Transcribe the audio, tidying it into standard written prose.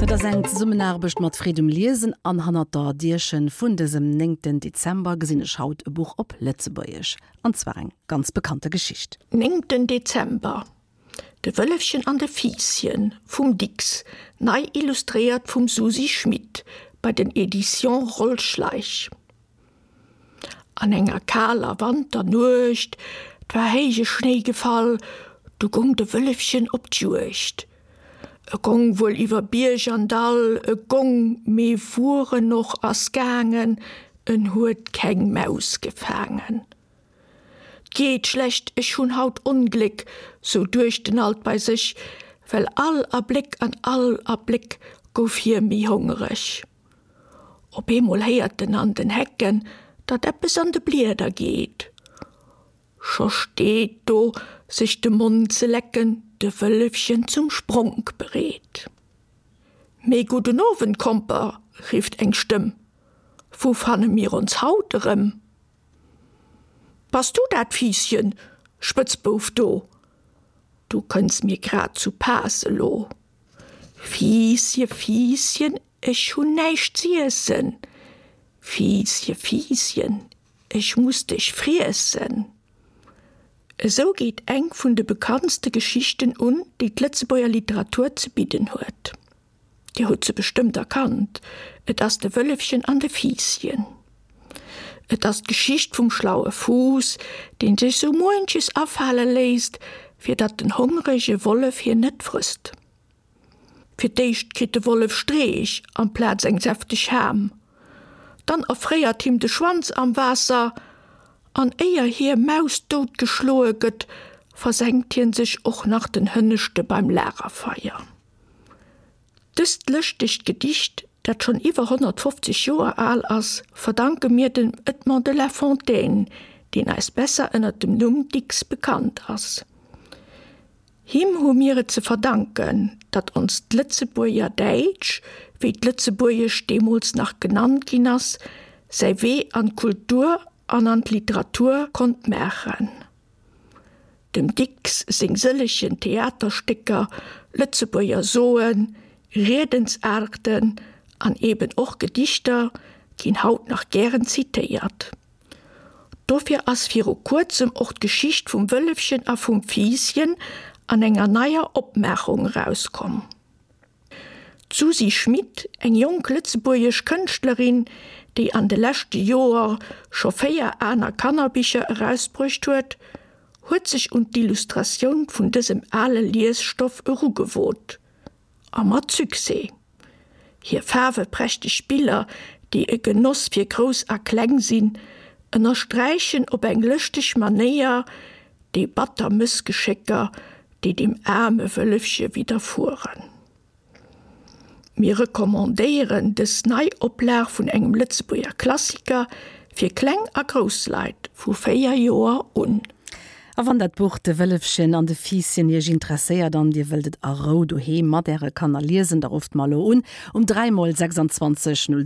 Dat ass eng Zesummenaarbecht mat Freed um Liesen an hannert der Dierchen vun dësem néngten Dezember gesinn ech haut e Buch op Lëtzebuergesch, an zwar eng ganz bekannte Geschicht. Néngten Dezember, De Wëllefchen an de Fiisschen vum Dicks, nei illustréiert vum Susi Schmit bei den Editions Roll Schleich. An enger kaler Wanternuecht, 't war héije Schnéi gefall, du gong de Wëllefchen op d'Juegd. E gong wuel iwwer Bierg an Dall, e gong, mee wuer en och ass gaangen, en huet keng Maus gefaangen. 'T geet schlecht, ech hunn haut Ongléck, sou duecht en alt bei sech, well all Abléck an all Abléck gouf hie méi hongereg. Op eemol héiert en an den Hecken, datt eppes an de Blieder geet. Scho steet do, sech de Mond ze lecken, de Wëllefchen zum Spronk bereet. Mee gudden Owend, Komper, rifft eng Stëmm, wou fanne mir ons haut erëm? Bass du dat, Fiisschen, Spëtzbouf do? Du kënns mir grad zu Paass elo. Fiissche, Fiisschen, ech hunn näischt z'iessen, Fiissche, Fiisschen, ech muss dech friessen. Esou geet eng vun de bekanntste Geschichten un, déi d'Lëtzebuerger Literatur ze bidden huet. Dir hutt se bestëmmt erkannt, et ass De Wëllefchen an de Fiisschen. Et ass d'Geschicht vum schlaue Fuuss, dee sech sou muenches afale léisst, fir datt den hongrege Wollef hien net frësst. Fir d'éischt kritt de Wollef Streech amplaz eng säfteg Ham. Dann erfréiert him de Schwanz am Waasser, an éier hie mausdout geschloe gëtt, versenkt hien sech och nach den Hënneschte beim Lagerfeier. Dëst lëschtegt Gedicht, dat schonn iwwer 150 Joer al ass, verdanke mir dem Edmond de La Fontaine, deen eis besser ënner dem Numm Dicks bekannt ass. Him hu mir et ze verdanken, datt onst Lëtzebuerger Däitsch, wéi d'Lëtzebuergescht deemools nach genannt ginn ass, säi Wee an d'Kultur an an d'Literatur konnt maachen. Dem Dicks seng sëllegen Theaterstécker, Lëtzebuerger Soen, Riedensaarten an eben och Gedichter ginn haut nach gären zitéiert. Dofir ass viru kuerzem och d'Geschicht vum Wëllefchen a vum Fiisschen an enger neier Opmaachung erauskomm. D'Susi Schmit, eng jonk lëtzebuergesch Kënschtlerin, déi an de leschte Joer scho 4 aner Kannerbicher erausbruecht huet, huet sech un d'Illustratioun vun dësem ale Liesstoff erugewot. A mat Succès! Hir faarweprächteg Biller, déi e Genoss fir Grouss a Kleng sinn, ënnersträichen op eng lëschteg Manéier déi batter Mëssgeschécker, déi dem aarme Wëllefche widderfueren. Mir recommandéieren dës nei Oplag vun engem Lëtzebuerger Klassiker fir kleng a grouss Leit vu 4 Joer un. A wann dat Buch De Wëllefchen an de Fiisschen Iech interesséiert an Dir wëllt et a Rou doheem mat Äre Kanner liesen, da rufft mer elo un um 3 mol 26 0.